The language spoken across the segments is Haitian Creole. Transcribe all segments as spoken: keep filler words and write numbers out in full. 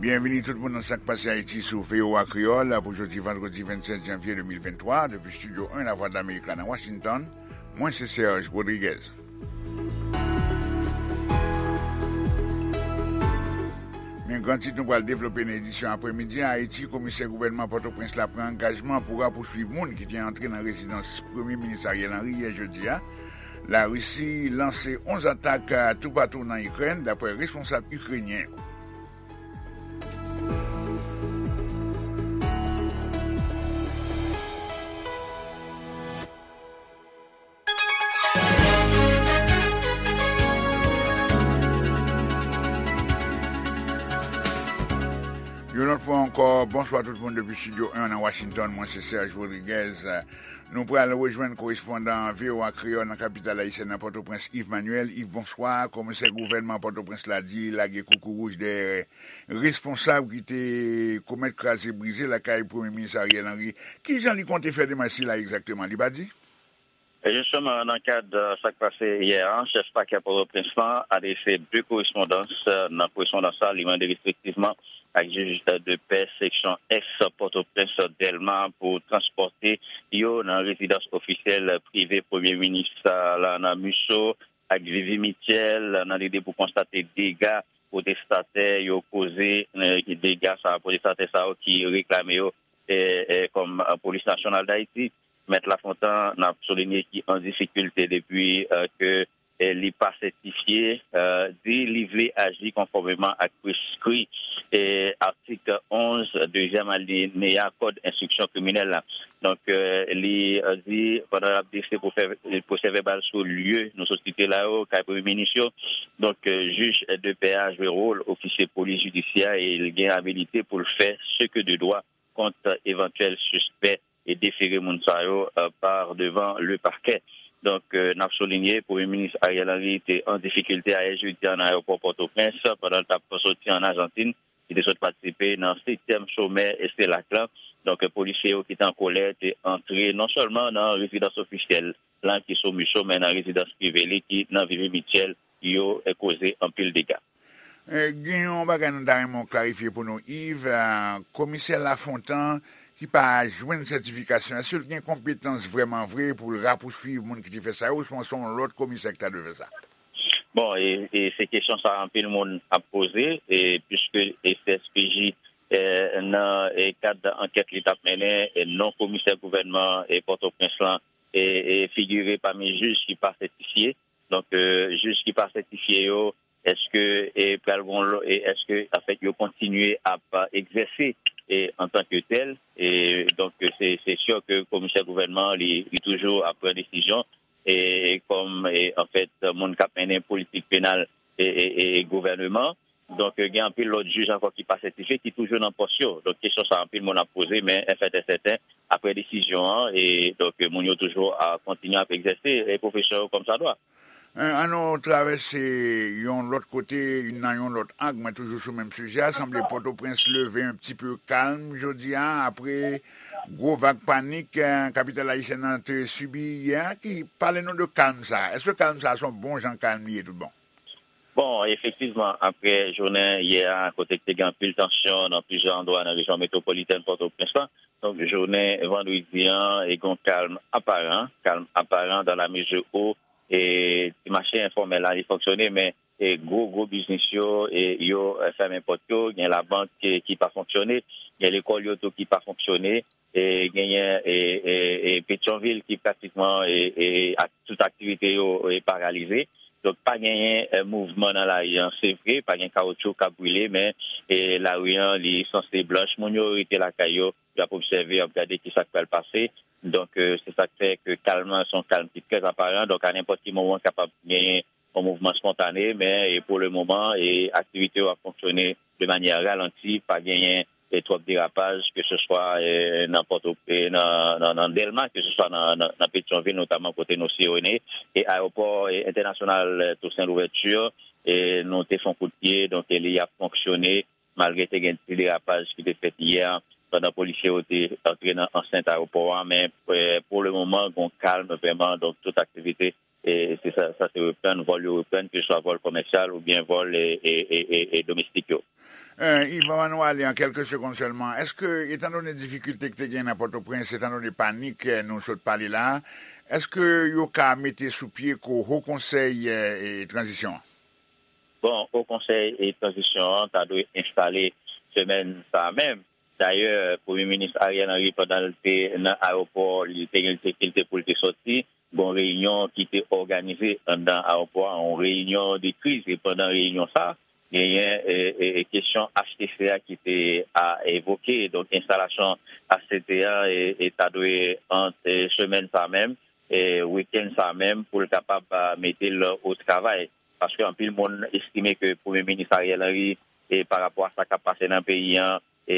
Byenvini tout moun nan Sa k Pase Ayiti sou V O A Kreyòl pou jodi vandredi vennsèt janvye de mil venntwa, depi Estidyo en Lavwadlamerik la nan Washington. Mwen se Serge Rodriguez. Men gran tit nou pral devlope nan edisyon aprèmidi a. Ayiti, komisè gouvènman Pòtoprens la pran angajman pou rapousuiv moun ki te antre nan rezidans Premye Minis Ariel Henry yè jedi a. Larisi lanse onz atak toupatou nan Ikrèn, daprè responsab ikrenyen yo. Yon lòt fwa ankò, bonswa tout moun depi Estidyo en nan Washington. Mwen se Serge Rodriguez. Nou pral rejwenn korespondan V O A Kreyòl nan kapital ayisyèn nan Pòtoprens, Yves Manuel. Yves, bonswa. Komisè gouvènman Pòtoprens la di lage koukouwouj dèyè responsab ki te komèt kraze brize lakay Premye Minis Ariel Henry. Kijan li konte fè demach sila egzakteman? Li pa di? E jisteman, nan kad, euh, sa k pase yè a, chèf pakè Pòtoprens lan adrese de korespondans. Euh, nan korespondans sa, li mande respektivman ak jij, euh, de pè seksyon ès Pòtoprens, Dèlma, pou transpòte yo nan rezidans ofisyèl prive Premye Minis, euh, la nan Musso ak Vivi Mitchell, nan lide pou konstate dega pwotestatè yo koze, euh, dega sa, pwotestatè sa yo ki reklame yo, euh, euh, kòm, euh, Polis Nasyonal Dayiti. Mèt Lafontan, n ap soulinye, ki an difikilte depi, euh, ke, euh, li pa sètifye, euh, di li vle aji konfòmeman ak preskri, euh, atik onz, dezyèm alineya Kòd enstriksyon kriminèl la. Donk, euh, li, euh, di, pandan l ap drese pwosè-, pwosè vèbal sou lye nou sot site la yo, kay Premye Minis yo, donk, euh, jij de pè a jwe wòl ofisye polis jidisyè e l gen abilite pou l fè ce que de droit kont evantyèl sispè e defere moun sa yo, euh, par devant le parquet. Donk, euh, n ap soulinye, Premye Minis Ariel Henry te an difikilte ayè jedi a nan ayewopò Pòtoprens pandan l t ap soti ann Ajantin. Li te sot patisipe nan setyèm somè CELAC la. Donk, polisye yo ki te an kòlè te antre non sèlman nan rezidans ofisyèl la ki sou Musso, men nan rezidans prive li ki nan Vivi Mitchell, yo, eh, koze anpil dega. Eh, gen yon bagay nou ta renmen w klarifye pou nou, Yves. Eh, komisè Lafontan ki pa jwenn sètifikasyon, èske l gen konpetans vrèman vre pou l rapousuiv moun ki te fè sa yo, ouswa se yon lòt komisè ki ta dwe fè sa? Bon, e, e se kesyon sa a anpil moun ap poze, e piske e C S P J, e, nan, e, kad ankèt li t ap mennen, e non komisè gouvènman e Pòtoprens lan, e, e figire pami jij ki pa sètifye. Donk, e, jij ki pa sètifye yo, èske, e, pral gon lò-, e èske, anfèt, yo kontinye ap, a, egzèse, e, antanke tèl? E, donk, se, se si ke komisè gouvènman, li, li toujou ap pran desizyon, e, kòm, e, anfèt, moun k ap mennen politik penal, e, e, e, e gouvèneman. Donk, gen anpil lòt jij ankò ki pa sètifye, ki toujou nan pòs yo. Donk, kesyon sa, anpil moun ap poze, men, anfèt, e sèten, apre desizyon an, e, donk, moun yo toujou a kontinye ap egzèse, e, pwofesyon yo kòmsadwa. Eh, ann nou travèse yon lòt kote, nan yon lòt ang, men toujou sou menm sijè a. Sanble Pòtoprens leve un petit peu kalm jodi a, apre gwo vag panik, eh, kapital ayisyèn nan te sibi yè a. Ki, pale nou de kalm sa a. Èske kalm sa a se yon bon jan kalm li ye tout bon? Bon, efektivman, apre jounen yè a, kote te gen anpil tansyon nan plizyè andwa nan rejyon metwopolitèn Pòtoprens lan, donk, jounen vandredi an, e gen yon kalm aparan, kalm aparan dans la mesure où, e, ti mache enfòmèl la, li fonksyone, men, e, gwo, gwo biznis yo, e, yo, e, fèmen pòt yo, gen labank ki, ki pa fonksyone, gen lekòl yo tou ki pa fonksyone, e, genyen, e, e, e, Petyonvil ki pratikman, e, e, ak tout aktivite yo, e, paralize. Donk, pa genyen, e, mouvman nan lari an. Se vre, pa gen kawoutchou k ap brile, men, e, lari an, li sanse blanch. Moun yo rete lakay yo, y ap obsève, y ap gade ki sa k pral pase. Donk, e, se sa k fè ke kalm nan se yon kalm ki trè aparan. Donk, a nenpòt ki moman, kapab genyen yon mouvman spontane, men, e, pou le moman, e, aktivite yo ap fonksyone de manyè ralanti, pa genyen, e, twòp derapaj, ke se swa, e, nan Pòto-, e, nan, nan, nan Dèlma, ke se swa nan, nan, nan Petyonvil, notaman kote nou siyone, e ayewopò, e, entènasyonal, e, Toussaint Louverture, e, nou te fè yon kout pye, donk, e, li ap fonksyone, malgre te gen ti derapaj ki te fèt yè, pandan polisye yo te antre nan ansent ayewopò a, men, e, pou le moman, gon kalm vrèman, donk, tout aktivite e se sa, sa se reprann, vòl yo reprann, keseswa vòl komèsyal oubyen vòl e, e, e, e, e domestik yo. Eh, Yvan, ann ale an kèlke segonn sèlman. Èske, etandone difikilte ki te gen nan Pòtoprens, etandone panik eh, nou sot pale la a, èske yo ka mete sou pye ko Ho Konsèy eh, e Tranzisyon an? Bon, Ho Konsèy e Tranzisyon an ta dwe enstale semèn sa a menm. Dayè, Premye Minis Ariel Henry, pandan l te nan ayewopò, li te gen difikilte pou l te sòti. Gon reyinyon ki te òganize anndan ayewopò a, yon reyinyon de kriz. E pandan reyinyon sa a, genyen e, e, e, kesyon H T C a ki te a, evoke. Donk, enstalasyon H T C a e, e ta dwe ant e, semèn sa a menm, e, wikenn sa a menm, pou l kapab a, mete l o travay. Paske anpil moun estime ke Premye Minis Ariel Henry, e, pa rapò a sa k ap pase nan peyi an, e,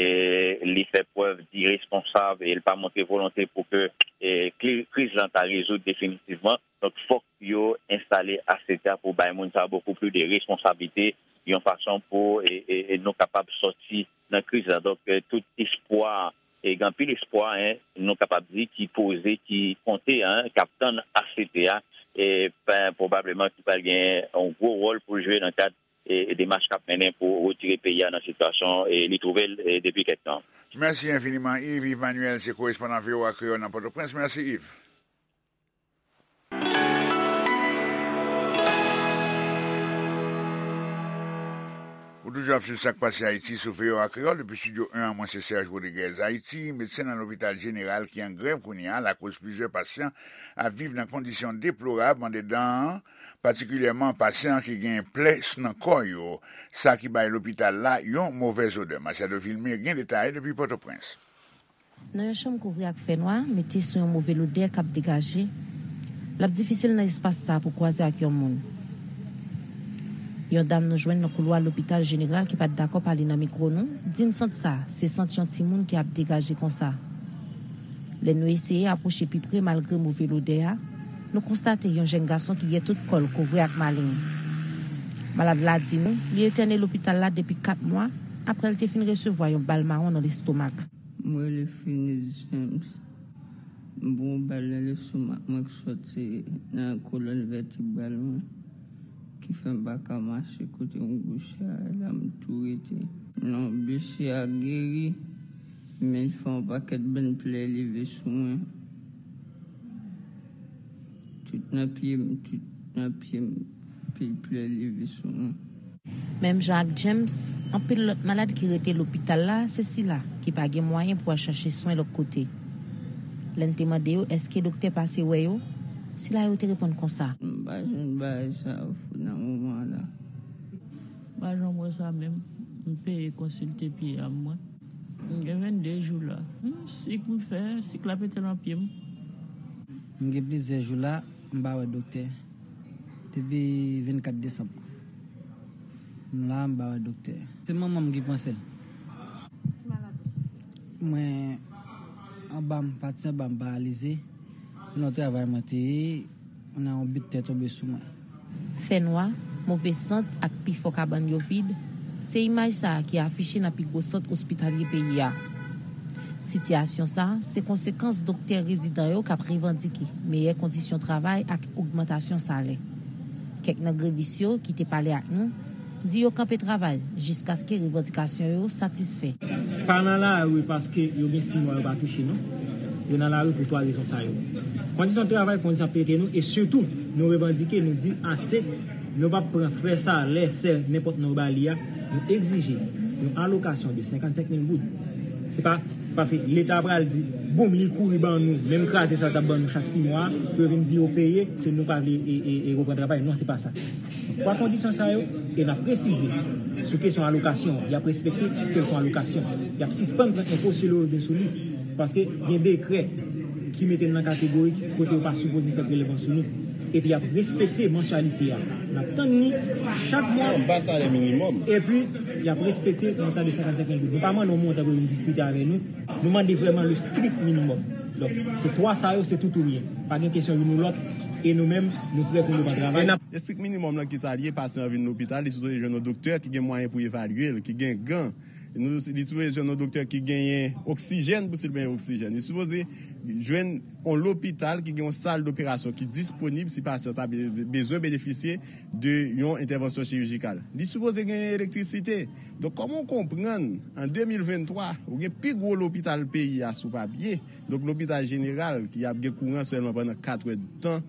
li fè prèv diresponsab e li pa montre volonte pou ke e, kli- kriz lan ta rezoud definitivman. Donk, fòk yo enstale H T C a pou bay moun sa a bokou plis de responsablite, yon fason pou e, e, e nou kapab sòti nan kriz lan. Donk, e, tout espwa, e, gen anpil espwa, en, nou kapab di, ki poze, ki konte, en, k ap tann H T C a, e, ben, pwobableman ki pral gen yon gwo wòl pou l jwe nan kad e, e demach k ap mennen pou retire peyi a nan sitiyasyon e li twouve l e, depi kèk tan. Mèsi enfiniman, Yves. Yves Manuel se korespondan V O A Kreyòl nan Pòtoprens. Mèsi, Yves. Ou toujou ap swiv Sa k Pase Ayiti sou V O A Kreyòl depi Estidyo en an. Mwen se Serge Rodriguez. Ayiti, medsen nan lopital jeneral ki an grèv kounye a lakoz plizyè pasyan ap viv nan kondisyon deplorab anndedan an, patikilyèman pasyan ki gen plè nan kò yo, sa ki bay lopital la yon movèz odè. Machado Vilmé gen detay depi Pòtoprens. Nan yon chanm kouvri ak fè nwa, mete sou yon move lodè k ap degaje, l ap difisil nan espas sa a pou kwaze ak yon moun. Yon dam nou jwenn nan koulwa lopital jeneral ki pa t dakò pale nan mikwo nou, di n sant sa a se sant yon timoun ki ap degaje konsa. Lè nou eseye apwoche pi pre malgre move lodè a, nou konstate yon jèn gason ki gen tout kò l kouvri ak maleng. Malad la di nou li entène lopital la depi kat mwa apre l te fin resevwa yon bal mawon nan lestomak. M rele Finis James. M pran yon bal nan lestomak mwen k sòti nan kolòn vètebral mwen, ki fè m pa ka mache kote m kouche a, e la m tou rete. Non, blesi a geri, men l fè yon pakèt bann plè leve sou mwen. Tout nan pye m, tout nan pye m, pil plè leve sou mwen. Menm jan ak James, anpil lòt malad ki rete lopital la se sila ki pa gen mwayen pou al chache swen lòt kote. Lè n te mande yo èske doktè pase wè yo, sila yo te reponn konsa. M pa jwenn bagay sa yo nan moman la. M pa janm wè sa menm. M peye konsilte pye a mwen. M gen vennde jou la. Hmm, sik m fè, sik la pete nan pye m. M gen plizyè jou la, m pa wè doktè. Depi vennkat desanm. M la, m pa wè doktè. Se manman m ki panse l. Mwen, anba m, pati anba m paralize. Se nan travay mwen te ye, nan yon bit tè tonbe sou mwen. Fè nwa, move sant ak pifò kabann yo vid, se imaj sa a ki afiche nan pi gwo sant ospitalye peyi a. Sitiyasyon sa a se konsekans doktè rezidan yo k ap revandike meyè kondisyon travay ak ogmantasyon salè. Kèk nan grevis yo ki te pale ak nou di yo kanpe travay jiskaske revandikasyon yo satisfè. Pa nan lari paske yo gen sis mwa yo pa touche non. Yo nan lari pou twa rezon sa yo. Kondisyon travay, kondisyon ap trete nou e sitou nou revandike, nou di ase, nou p ap pran frè salè, sè, nenpòt non yo ba li a, nou egzije yon alokasyon de senkannsenk mil goud. Se pa paske leta pral di boum li kouri ban nou menm kraze sa l t ap ban nou chak sis mwa pou yo vin di yo peye, se nou pa vle e, e, e reprann travay. Non, se pa sa. Twa kondisyon sa yo, e n ap presize sou kesyon alokasyon, y ap respekte ke l se yon alokasyon. Y ap sispann pran enpo sou le revni sou li, paske gen dekrè ki mete n nan kategori kote yo pa sipoze fè prelèvman sou nou. Epi y ap respekte mansyalite a. N ap tann li chak mwa. Anba salè minimòm. Epi y ap respekte montan de senkannsenk mil goud. Nou pa mande yon montan pou yo vin diskite avè nou. Nou mande vrèman le strict minimum. Donk, se twa sa yo, se tout ou ryen. Pa gen kesyon youn ou lòt, e nou menm, nou prè pou nou pran travay. Estrik minimòm lan kisa l ye? Pasyan an vin lopital, li sipoze jwenn yon doktè ki gen mwayen pou evalye l, ki gen gan, Nou, li sipoze jwenn yon doktè ki genyen oksijèn pou si l bezwen oksijèn. Li sipoze jwenn yon lopital ki gen yon sal doperasyon ki disponib si pasyan sa be- bezwen benefisye de yon entèvansyon chirijikal. Li sipoze genyen elektrisite. Donk, kòman w konprann, an de mil venntwa, ou gen pi gwo lopital peyi a sou papye, donk lopital jeneral ki ap gen kouran sèlman pandan kat èdtan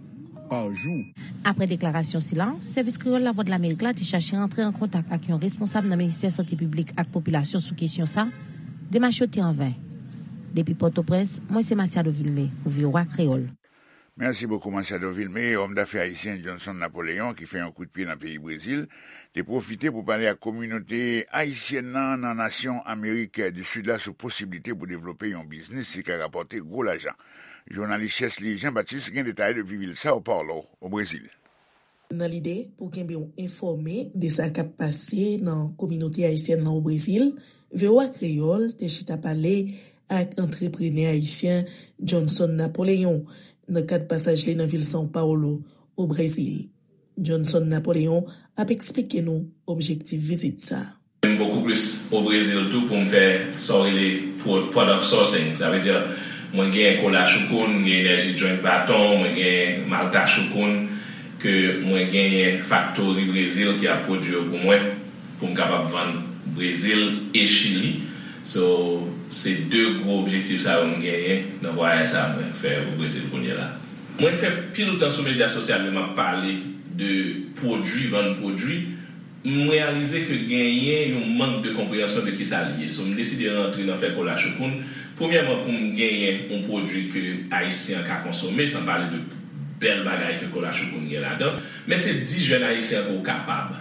pa jou. Apre deklarasyon sila, Sèvis Kreyòl Lavwadlamerik la te chache rantre an kontak ak yon responsab nan Ministè Sante Piblik ak Popilasyon sou kesyon sa, demach yo te anven. Depi Pòtoprens, mwen se Masiado Vilmé pou V O A Kreyòl. Mèsi bokou Masiado Vilmé. Òm dafè ayisyen Johnson Napoléon ki fè yon kout pye nan peyi Brezil te pwofite pou pale ak kominote ayisyèn nan nan nasyon Amerik di Sid la sou posiblite pou devlope yon biznis ki ka rapòte gwo lajan. Jounalis Chesly Jean Baptiste gen detay depi vil Sao Paulo, o Brezil. Nan lide pou kenbe w enfòme de sa k ap pase nan kominote ayisyèn lan o Brezil, V O A Kreyòl te chita pale ak antreprenè ayisyen Johnson Napoléon nan kad pasaj li nan vil São Paulo, o Brezil. Johnson Napoléon ap eksplike nou objektif vizit sa a. M bokou plis o Brezil tou pou m fè sa w rele product sourcing. Sa vle di, mwen genyen kola Choukoun, m gen Energy Drink Baton, mwen genyen Malta Choukoun, ke mwen genyen faktori Brezil ki ap pwodui yo pou mwen, pou m kapab vann Brezil e Chili. So, se de gwo objektif sa yo m genyen nan vwayaj sa mwen fè o Brezil kounye la. Mwen fè pil tan sou medya sosyal yo m ap pale de pwodui, vann pwodui. M reyalize ke genyen yon mank de konpreyansyon de kisa li ye. So, m deside rantre nan fè kola Choukoun. Premyèman, pou m genyen yon pwodui ke Ayisyen an ka konsome, san pale de bèl bagay ke kola Choukoun gen ladan. Men se di jèn Ayisyen an ke w kapab.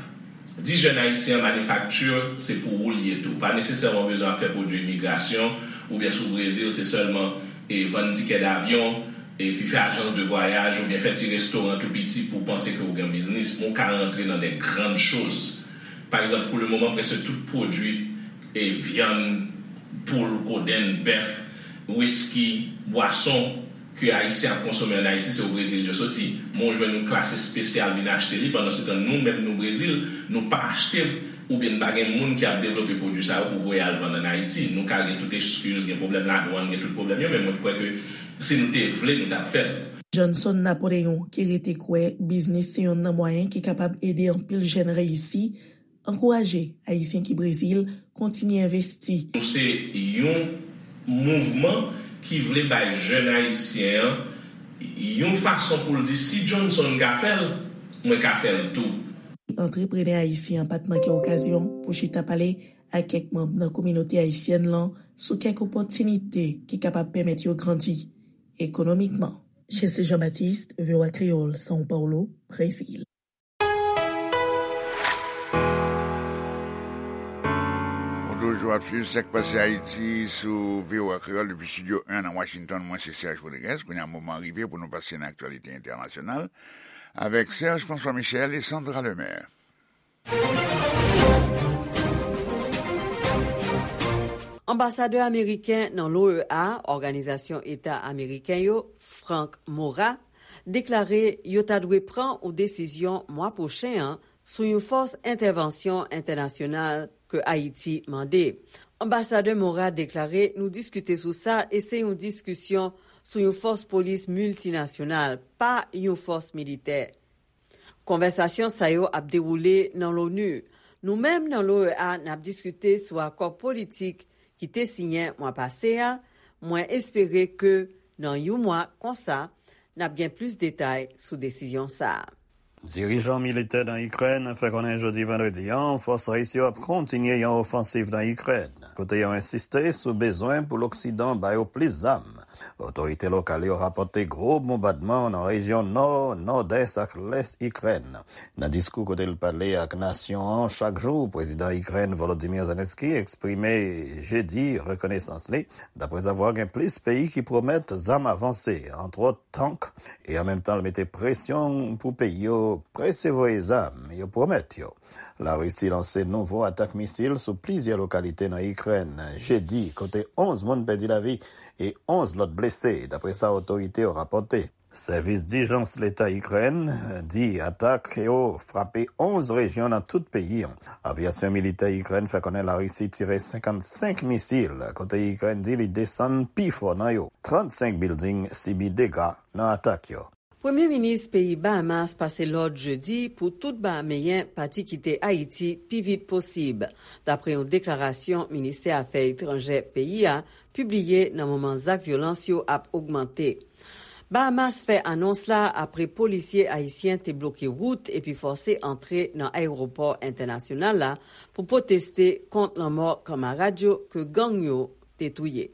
Di jèn Ayisyen an, manifakti, se pou ou li ye tou. Pa nesesèman bezwen ap fè pwodui imigrasyon, oubyen si w Brezil, se sèlman e vann tikè davyon, epi fè ajans de vwayaj oubyen fè ti restoran tou piti pou w panse ke w gen biznis, men w ka rantre nan de grann choz. Pa egzanp, pou le moman, prèske tout pwodui e vyann, poul, kodenn, bèf, wiski, bwason ke Ayisyen ap konsome ann Ayiti, se o Brezil yo soti. Men w jwenn yon klas espesyal vin achte li, pandansetan nou menm nou Brezil, nou pa achte oubyen n pa gen moun ki ap devlope pwodui sa yo pou voye al vann ann Ayiti. Nou ka gen tout eskiz, gen pwoblèm ladwann, gen tout pwoblèm yo, men mwen kwè ke si nou te vle, nou t ap fè l. Johnson Napoléon, ki rete kwè biznis se yonn nan mwayen ki kapab ede anpil jèn reyisi, ankouraje Ayisyen ki Brezil kontinye envesti. Nou se yon mouvman ki vle bay jèn Ayisyen an yon fason pou l di, si Johnson ka fè l, mwen ka fè l tou. Antreprenè ayisyen an pa t manke okazyon pou chita pale ak kèk manm nan kominote ayisyèn lan sou kèk opòtinite ki kapab pèmèt yo grandi ekonomikman. Chesly Jean Baptiste, V O A Kreyòl, São Paulo, Brezil. Ou toujou ap swiv Sa k Pase Ayiti sou V O A Kreyòl depi Estidyo en nan Washington. Mwen se Serge Rodriguez. Kounye a moman rive pou nou pase nan aktyalite entènasyonal avèk Serge François Michel e Sandra Lemaire. Anbasadè ameriken nan l'O E A, Òganizasyon Eta Ameriken yo, Frank Maura, deklare yo ta dwe pran yon desizyon mwa pwochen an sou yon fòs entèvansyon entènasyonal ke Ayiti mande. Anbasadè Maura deklare nou diskite sou sa e se yon diskisyon sou yon fòs polis miltinasyonal, pa yon fòs militè. Konvèsasyon sa yo ap dewoule nan l'ONU. Nou menm nan l'O E A n ap diskite sou akò politik ki te siyen mwa pase a. Mwen espere ke nan yon mwa konsa, n ap gen plis detay sou desizyon sa a. Dirijan militè nan Ikrèn fè konnen jodi vandredi an fòs ris yo ap kontinye yon ofansiv nan Ikrèn, kote yo ensiste sou bezwen pou Loksidan ba yo plis zam. Otorite lokal yo rapòte gwo bonbadman nan rejyon nò, nòdès ak lès Ikrèn. Nan diskou kote l pale ak nasyon an chak jou, prezidan Ikrèn Volodymyr Zelensky eksprime jedi rekonesans li, daprezavwa gen plis peyi ki pwomèt zam avanse, antwòt tank, e an menm tan l mete presyon pou peyi yo prese voye zam yo pwomèt yo. Larisi lanse nouvo atak misil sou plizyè lokalite nan Ikrèn jedi, kote onz moun pèdi lavi e onz lòt blese, dapre sa otorite yo rapòte. Sèvis dijans leta Ikrèn di atak yo frape onz rejyon nan tout peyi an. Avyasyon militè Ikrèn fè konnen Larisi tire senkannsenk misil, kote Ikrèn di li desann pifò nan yo. Trannsenk bilding sibi dega nan atak yo. Premye minis peyi Bahamas pase lòd jedi pou tout Bahameyen pati kite Ayiti pi vit posib, dapre yon deklarasyon ministè afè etranjè peyi a pibliye nan moman zak vyolans yo ap ogmante. Bahamas fè anons la apre polisye ayisyen te bloke wout epi fòse antre nan ayewopò entènasyonal la pou pwoteste kont lanmò kanmarad yo ke gang yo te touye.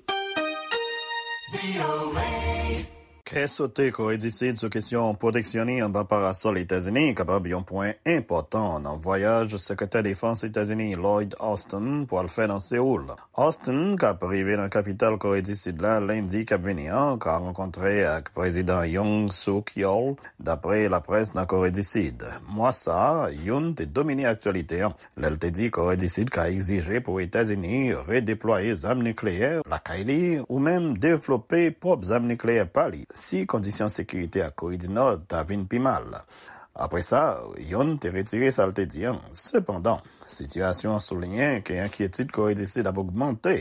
Kè sote Kore di Sid sou kesyon pwoteksyon li anba parasòl Etazini kapab yon pwen enpòtan nan vwayaj Sekretè Defans Etazini Lloyd Austin pwal fè nan Seoul. Austin, k ap rive nan kapital Kore di Sid la lendi k ap vini an, ka rankontre ak Prezidan Yoon Suk Yeol, dapre laprès nan Kore di Sid. Mwa sa a, Yoon te domine aktyalite an lè l te di Kore di Sid ka egzije pou Etazini redeplwaye zam nikleyè lakay li ou menm devlope pwòp zam nikleyè pa li si kondisyon sekirite ak Kore di Nò ta vin pi mal. Apre sa, Yoon te retire sa l te di an. Sepandan, sitiyasyon an souliyen ke enkyetid Kore di Sid ap ogmante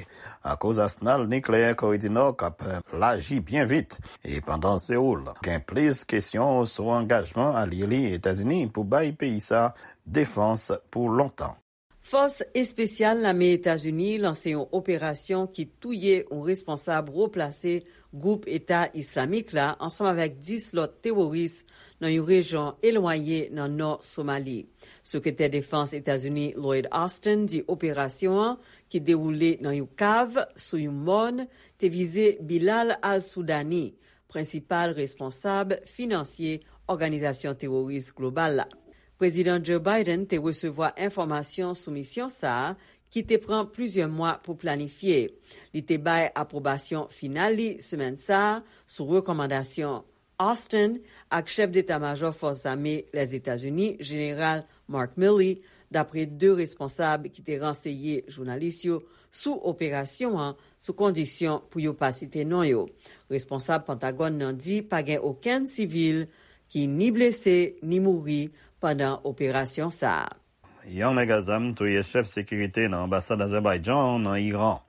akoz asnal nikleyè Kore di Nò k ap laji byen vit. E pandan Seoul gen plis kesyon sou angajman alye li Etazini pou bay peyi sa defans pou lontan. Fòs espesyal lame Etazini lanse yon operasyon ki touye yon responsab wo plase gwoup Eta Islamik la ansanm avèk dis lòt teworis nan yon rejyon elwaye nan nò Somali. Sekretè Defans Etazini Lloyd Austin di operasyon an, ki dewoule nan yon kav sou yon mòn, te vize Bilal al-Soudani, prensipal responsab finansye òganizasyon teworis global la. Prezidan Joe Biden te resevwa enfòmasyon sou misyon sa a, ki te pran plizyè mwa pou planifye. Li te bay apwobasyon final li semèn sa a sou rekòmandasyon Austin ak chèf deta majò fòs zame Lèzetazini, Jeneral Mark Milley, dapre de responsab ki te ranseye jounalis yo sou operasyon an sou kondisyon pou yo pa site non yo. Responsab Pentagòn nan di pa gen okenn sivil ki ni blese ni mouri pandan operasyon sa a. Yon nèg a zam touye chèf sekirite nan anbasad Azèbayjan nan Iran.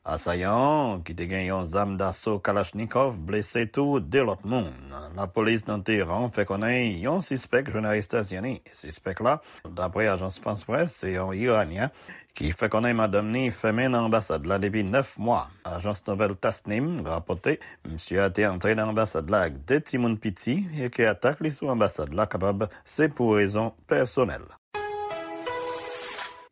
Asayan an, ki te gen yon zam daso Kalachnikov, blese tou de lòt moun. Lapolis nan Teheran fè konnen yon sispèk jwenn arestasyon li. Sispèk la, dapre ajans Frans Près, se yon Iranyen ki fè konnen madanm li fèmen nan anbasad la depi nèf mwa. Ajans nouvèl Tasnim rapòte, misye a te antre nan anbasad la ak de timoun piti e ke atak li sou anbasad la kapab se pou rezon pèsonèl.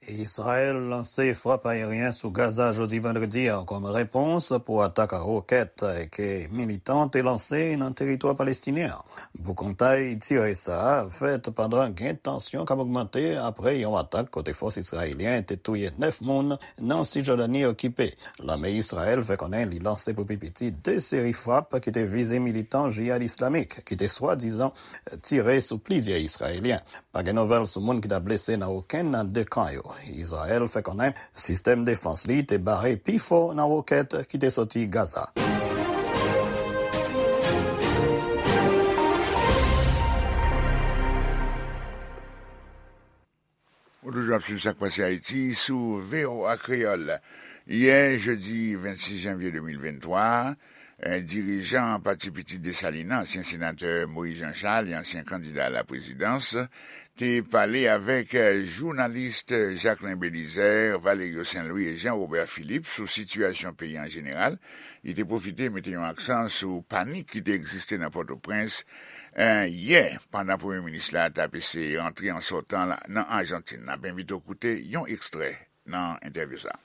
Izrayèl lanse frap ayeryen sou Gaza jodi vandredi a kòm repons pou atak a wokèt ke militan te lanse nan teritwa palestinyen an. Boukontay tire sa a fèt pandan gen tansyon k ap ogmante apre yon atak kote fòs izrayelyen te touye nèf moun nan Sijòdani okipe. Lame Izrayèl fè konnen li lanse pou pi piti de seri frap ki te vize militan jihad islamik ki te swadizan tire sou plizyè Izrayelyen. Pa gen nouvèl sou moun ki ta blese nan okenn nan de kan yo. Izrayèl fè konnen sistèm defans li te bare pifò nan wokèt ki te soti Gaza. Ou toujou ap swiv Sa k Pase Ayiti sou V O A Kreyòl. Yè, jedi vennsis janvye de mil venntwa, eh, dirijan Pati Pitit Desalin nan, ansyen senatè Moïse Jean Charles e ansyen kandida a la prezidans, te pale avèk, eh, jounalis Jacquelin Belizaire, Valerio Saint Louis e Jean Robert Philippe sou sitiyasyon peyi an jeneral. Li te pwofite mete yon aksan sou panik ki te egziste nan Pòtoprens, eh, yè, pandan premye minis la t ap eseye rantre an sòtan la nan Ajantin. N ap envite w koute yon ekstrè nan entèvyou sa a.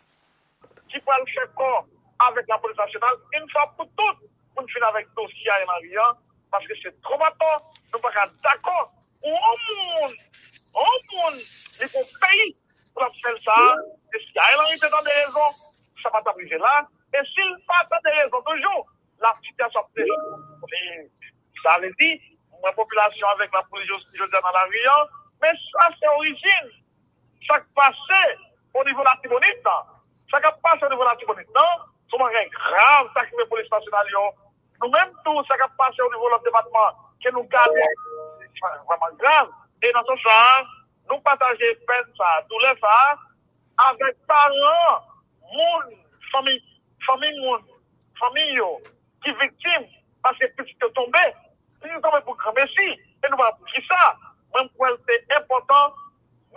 Ki pral fè kò avèk lapolis nasyonal, yon fwa pou tout, pou n fin avèk dosye Ariel Henry an, paske se twòp atò, nou pa ka dakò pou yon moun, yon moun, li pou yon peyi, pou l ap fè l sa a, e si Ariel Henry te tande rezon, sa pa t ap rive la, e si l pa tande rezon toujou, la sitiyasyon ap deja. E sa vle di, mwen popilasyon avèk lapolis jodi, jodi a nan lari an, men sa se orijin sa k pase o nivo Latibonit lan. Sa k ap pase o nivo Latibonit lan, se yon bagay grav, sa k rive polis nasyonal yo, Nou menm tou, sa k ap pase o nivo lòt depatman, ke nou gade, se vrèman grav. E nan sans sa a, nou pataje pèn sa a, doulè sa a, avèk paran moun, fanmi, fanmi moun, fanmi yo, ki viktim, paske pitit yo tonbe, pitit yo tonbe pou granmesi, e nou pa pou kisa. Mwen, m kwè l te enpòtan,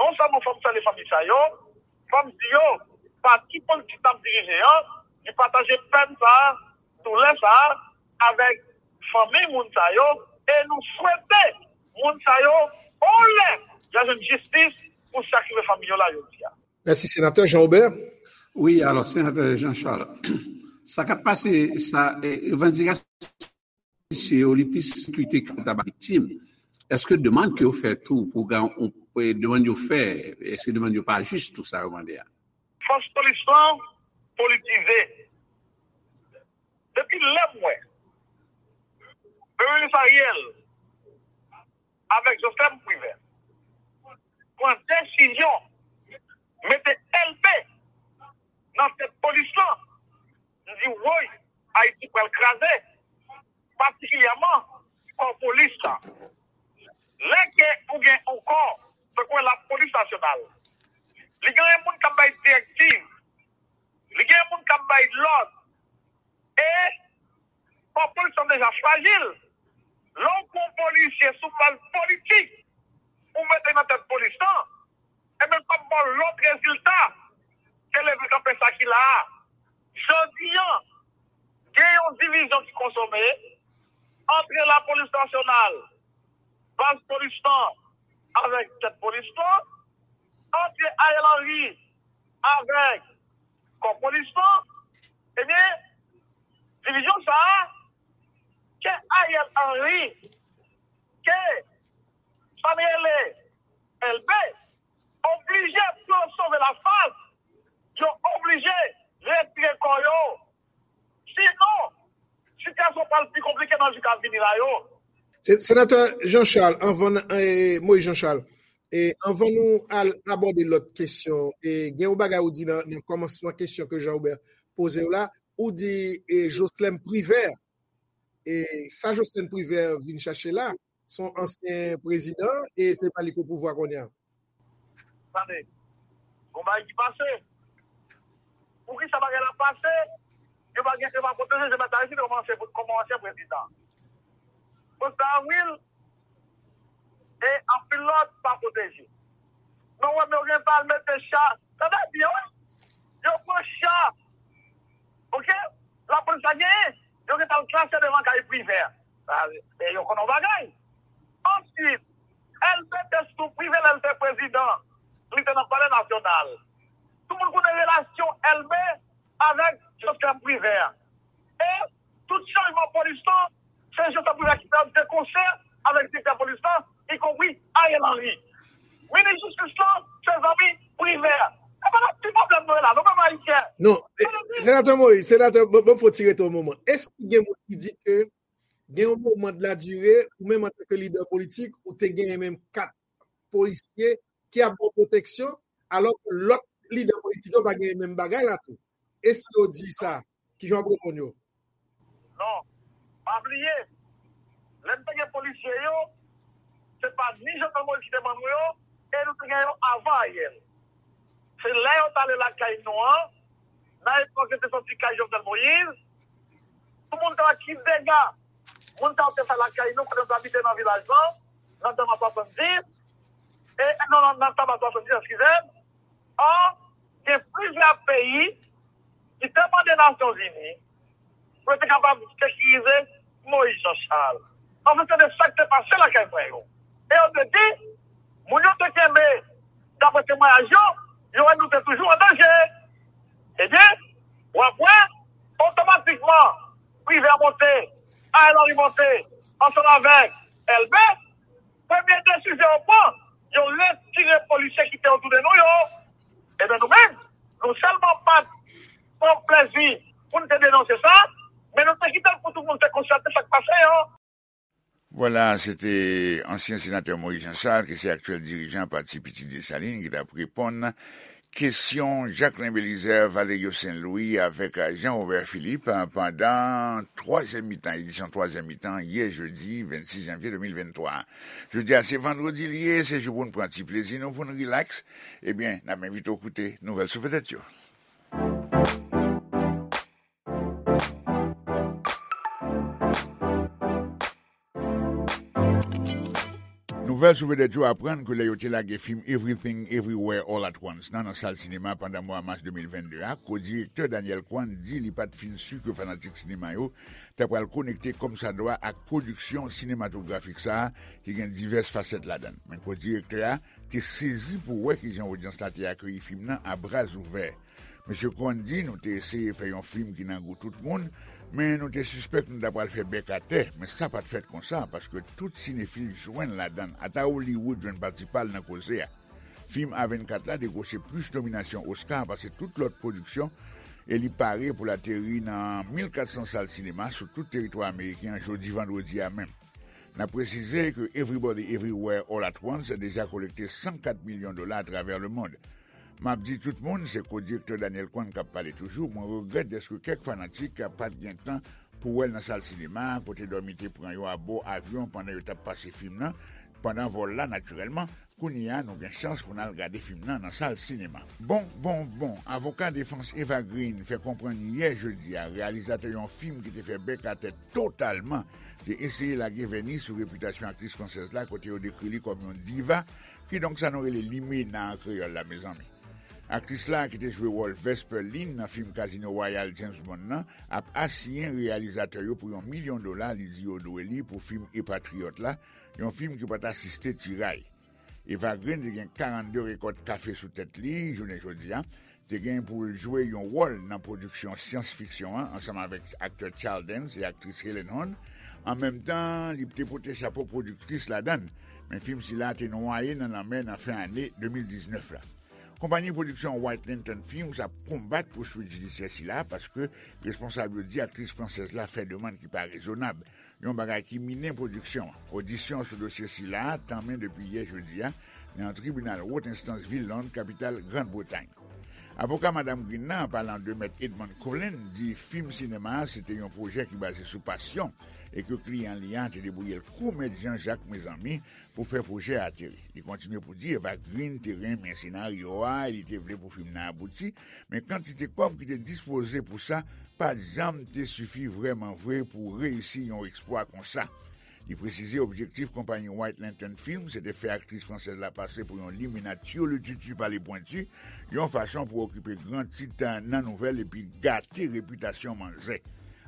non sèlman fò m salye fanmi sa yo, fò m di yo, pati politik n ap dirije an, li pataje pèn sa a, doulè sa a, avèk fanmi moun sa yo, e nou swete moun sa yo, yon lè, y a jwenn jistis pou sa k rive fanmi yo la jodi a. Mèsi, Senatè Jean Aubert. Wi, alò, Senatè Jean Charles, sa k ap pase, sa, eh, revandikasyon misye yo, li plis sekirite ke ta ba viktim. Èske demann ke yo fè tou pou gen yon, eh, demann yo fè, èske demann yo pa jis tou sa yo mande a? Fòs polis lan politize. Depi lè m wè Premye Minis Ariel avèk Joslèm Privè pran desizyon mete Elbe nan tèt polis lan, m di, woy, Ayiti pral kraze, patikilyèman kò polis la. Lè ke ou gen yon kò, tankou lapolis nasyonal, li gen moun k ap bay direktiv, li gen moun k ap bay lòd, e kò polis lan deja frajil. Lè w pran yon polisye sou baz politik, ou mete nan tèt polis lan, ebyen, l p ap ba w lòt rezilta ke leve kanpe sa ki la a. Jodi a, gen yon divizyon ki konsome ant lapolis nasyonal, baz polis lan, avèk tèt polis lan, ant Ariel Henry avèk kò polis lan. Ebyen, divizyon sa a, ke Ariel Henry, ke sa m rele Elbe, oblije pou yo sove lafas, yo oblije retire kò yo. Sinon, sitiyasyon pral pi konplike nan jou k ap vini la yo. Se-, Senatè Jean Charles, anvan n, eh, Moïse Jean Charles, eh, anvan nou al abòde lòt kesyon, eh, gen yon bagay ou di nan, nan kòmansman kesyon ke Jean Robert poze w la, ou di, eh, Joslèm Privè, eh, sa Joslèm Privè vin chache la, se yon ansyen prezidan, e se pa li ki o pouvwa kounye a. Tande, gon bagay ki pase. Poukisa bagay la pase? Yo pa gen, yo pa pwoteje Joseph Aristide kòman ansyen, kòman ansyen prezidan. Prezidan Avril e anpil lòt pa pwoteje. Men w wè, men yo gen pa al mete cha. Tande byen, wi. Yo pran cha. Oke? Lapolis la genyen. Yo gen pa al klase devan kay Privè. Sa, e yo konnen yon bagay. Answit, Elbe te sou Privè lè l te prezidan. Li te nan Palè Nasyonal. Tout moun konnen relasyon Elbe avèk Joslèm Privè. E tout chanjman polis lan, se Joslèm Privè ki fè l de konsè avèk direktè polis lan, ikonpri Ariel Henry. Minis jistis lan, se zanmi Privè. E pa nan ti pwoblèm nou ye la, nou menm Ayisyen. Non, e, Senatè Moïse, Senatè, bon, bon, fò ti rete yon moman. Èske gen moun ki di ke gen yon moman de la dire, ou menm antanke lidè politik, ou te genyen menm kat polisye ki ap ba w pwoteksyon, alò ke lòt lidè politik yo pa genyen menm bagay la tou? E si yo di sa, kijan w ap reponn yo? Non, pa bliye, lè n te gen polisye yo, se pa ni Jovenel Moïse ki te ban nou yo, e nou te gen yo avan Ariel. Se lè yo t ale lakay nou an, nan epòk yo te soti kay Jovenel Moïse, tout moun te wè ki dega moun sa yo te fè lakay nou, kote nou te abite nan vilaj lan, nan Tama swasanndis, e, e, non, non, nan Tama swasanndis, eskize m, an, gen plizyè peyi ki te mande Nasyonzini pou yo te kapab sekirize Moïse Jean Charles. Anfen, se de sa k te pase lakay mwen yo. E yo te di, moun yo te kenbe, daprè temwayaj yo, yo wè nou te toujou an danje. Ebyen, w ap wè, otomatikman, Privè monte, Ariel Henry monte, ansanm avèk Elbe, premye desizyon yo pran, yo retire polisye ki te otou de nou yo. Ebyen, nou menm, nou sèlman pa t pran plezi pou n te denonse sa, men nou te kite l pou tout moun te konstate sa k pase yo. Vwala, se te ansyen senatè Moïse Jean Charles, ki se aktyèl dirijan Pati Pitit Desalin, ki t ap reponn kesyon Jacquelin Belizaire, Valerio Saint-Louis avèk Jean Robert Philippe, eh, pandan twazyèm mitan, edisyon twazyèm mitan, yè jedi vennsis janvye de mil venntwa. Jodi a se vandredi l ye, se jou pou n pran ti plezi nou, pou n rilaks. Ebyen, n ap envite w koute nouvèl sou vedèt yo. Nouvèl sou vedèt yo aprann ke lè yo te lage fim Everything Everywhere All at Once nan, nan sal sinema pandan mwa mas de mil vennde a, ko-direktè Daniel Kwan di li pa t fin si ke fanatik sinema yo ta pral konekte kòmsadwa ak pwodiksyon sinematografik sa a ki gen divès fasèt ladan l. Men ko-direktè a te sezi pou wè kijan odyans la te akeyi fim nan a bra ouvè. Mesye Kwan di, nou te eseye fè yon fim ki nan gou tout moun, men nou te sispèk nou ta pral fè bèk atè, men sa pa t fèt konsa, paske tout sinefil jwenn ladan l, ata Hollywood jwenn pati pa l nan koze a. Fim A vennkat la dekwoche plis nominasyon Oscar pase tout lòt pwodiksyon, e li pare pou l ateri nan mil kat san sal sinema sou tout teritwa ameriken an jodi vandredi a menm. N ap presize ke Everybody Everywhere All at Once deja kolekte san kat milyon dola atravè lemonn. M ap di tout moun, se ko-direktè Daniel Kwan k ap pale toujou, mwen regrèt dèske kèk fanatik pa t gen tan pou wè l nan sal sinema a, kote dòmi te pran yo abò avyon pandan yo t ap pase fim nan, pandan vòl la, natirèlman. Kounye a, nou gen chans pou n al gade fim nan nan sal sinema. Bon, bon, bon, avoka defans Eva Green fè konprann yè jedi a, reyalizatè yon fim ki te fè bèk atè totalman, te eseye lage vèni sou repitasyon aktris fransèz la, kote yo dekri li kòm yon diva, kidonk sa nou rele limena an kreyòl la, mezanmi. Aktris la, ki te jwe wòl Vesper Lynd nan fim Casino Royale James Bond nan, ap asiyen reyalizatè yo pou yon milyon dola li di yo dwe li pou fim Epatriyòt la, yon fim ki pa t asiste tiray. Eva Green te gen karannde rekòt kafe sou tèt li jounen jodi a, te gen pou l jwe yon wòl nan pwodiksyon syans fiksyon an ansanm avèk aktè Charles Dance e aktris Helen Hunt. An menm tan, li te pote chapo pwodiktris ladan l, men fim sila te nwaye nan lanmè nan fen ane de mil diznèf la. Konpayi pwodiksyon White Lantern Films ap konbat pouswit jidisyè sila paske responsab yo di aktris fransèz la fè demann ki pa rezonab, yon bagay ki minen pwodiksyon an. Odisyon sou dosye sila a tanmen depi yè jedi a nan yon tribinal wot enstans vil Lond, kapital Grann Bretay. Avoka Madam Green nan, an palan de Mèt Edmond Cullen, di fim sinema a se te yon pwojè ki baze sou pasyon e ke kliyan li a te debouye l kou Mèt Jan Jak, mezanmi, pou fè pwojè a ateri. Li kontinye pou di Eva Green te renmen senaryo a e li te vle pou fim nan abouti, men kantite kòb ki te dispoze pou sa pa t janm te sifi vrèman vre pou reyisi yon eksplwa konsa. Li presize objektif konpayi White Lantern Films se te fè aktris fransèz la pase pou yon limena tirlititi pale pwenti, yon fason pou okipe gran tit nan nouvèl epi gate repitasyon manzè.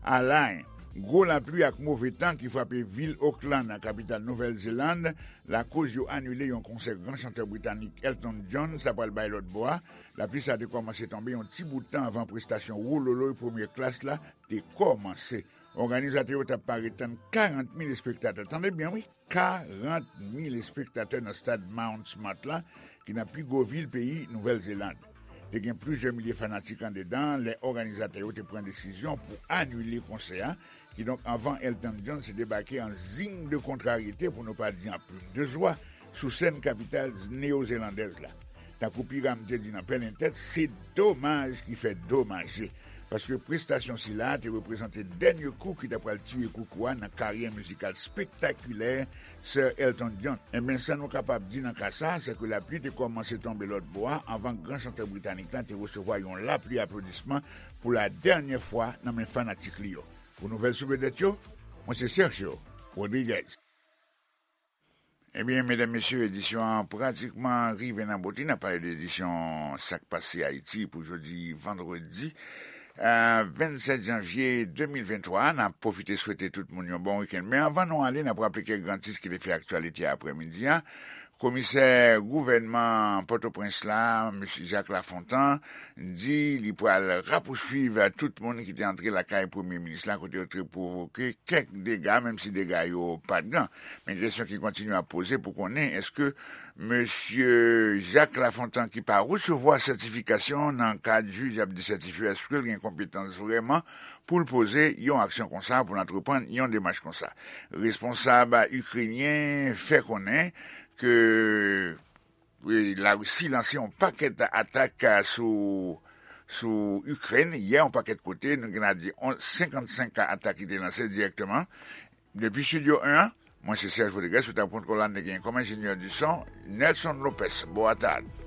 Alain, gwo lapli ak move tan ki frape vil Auckland, kapital Nouvèl Zeland, lakoz yo anile yon konsè gran chantè britanik Elton John sa pral bay lòt bò a. Lapli sa te kòmanse tonbe yon ti bout tan anvan prestasyon wololoy premye klas la te kòmanse. Òganizatè yo t ap pare tann karant mil espektatè. Tande byen, wi, karant mil espektatè nan stad Mount Smart la, ki nan pi gwo vil peyi Nouvèl Zeland. Te gen plizyè milye fanatik andedan lè òganizatè yo te pran desizyon pou anile konsè a, kidonk anvan Elton John se debake an zing de kontraryete, pou nou pa di an plim de zwa, sou sèn kapital neyozelandèz la. Tankou Piram te di nan pèlen tèt, se domaj ki fè domaje. Paske prestasyon sila a te reprezante dènye kou ki ta pral tiye koukou a nan karyè mizikal spektakilè Sir Elton John. Enben, sa nou kapab di nan ka sa a, se ke lapli te kòmanse tonbe lòt bò a anvan gran chantè britanik la te resevwa yon lapli aplodisman pou la dènyè fwa nan men fanatik li yo. Pou nouvèl sou vedèt yo, mwen se Sergio Rodriguez. Ebyen, medam, mesye, edisyon an pratikman rive nan bout li. N ap pale de edisyon Sa k Pase Ayiti pou jodi vandredi, eh, vennsèt janvye de mil venntwa. N ap pwofite swete tout moun yon bon wikenn. Men anvan nou ale, n ap raple kèk gran tit ki te fè aktyalite aprèmidi a. Komisè gouvènman Pòtoprens la, mesye Jacques Lafontant, di li pral rapousuiv tout moun ki te antre lakay premye minis la, kote yo te pwovoke kèk dega, menm si dega yo pa t gran. Men kesyon ki kontinye ap poze pou konnen èske mesye Jacques Lafontant, ki pa resevwa sètifikasyon nan kad jij ap desètifye, èske l gen konpetans vrèman pou l poze yon aksyon konsa, pou l antreprann yon demach konsa? Responsab ikrenyen fè konnen ke Larisi lanse yon pakèt atak sou sou Ikrèn yè, yon pakèt kote, nou gen a di senkannsenk atak ki te lanse dirèkteman. Depi Studio en an, mwen se Serge Rodriguez, sou tab kont kolòn, te gen kòm enjenyè di son, Nelson Lopez. Bon atak.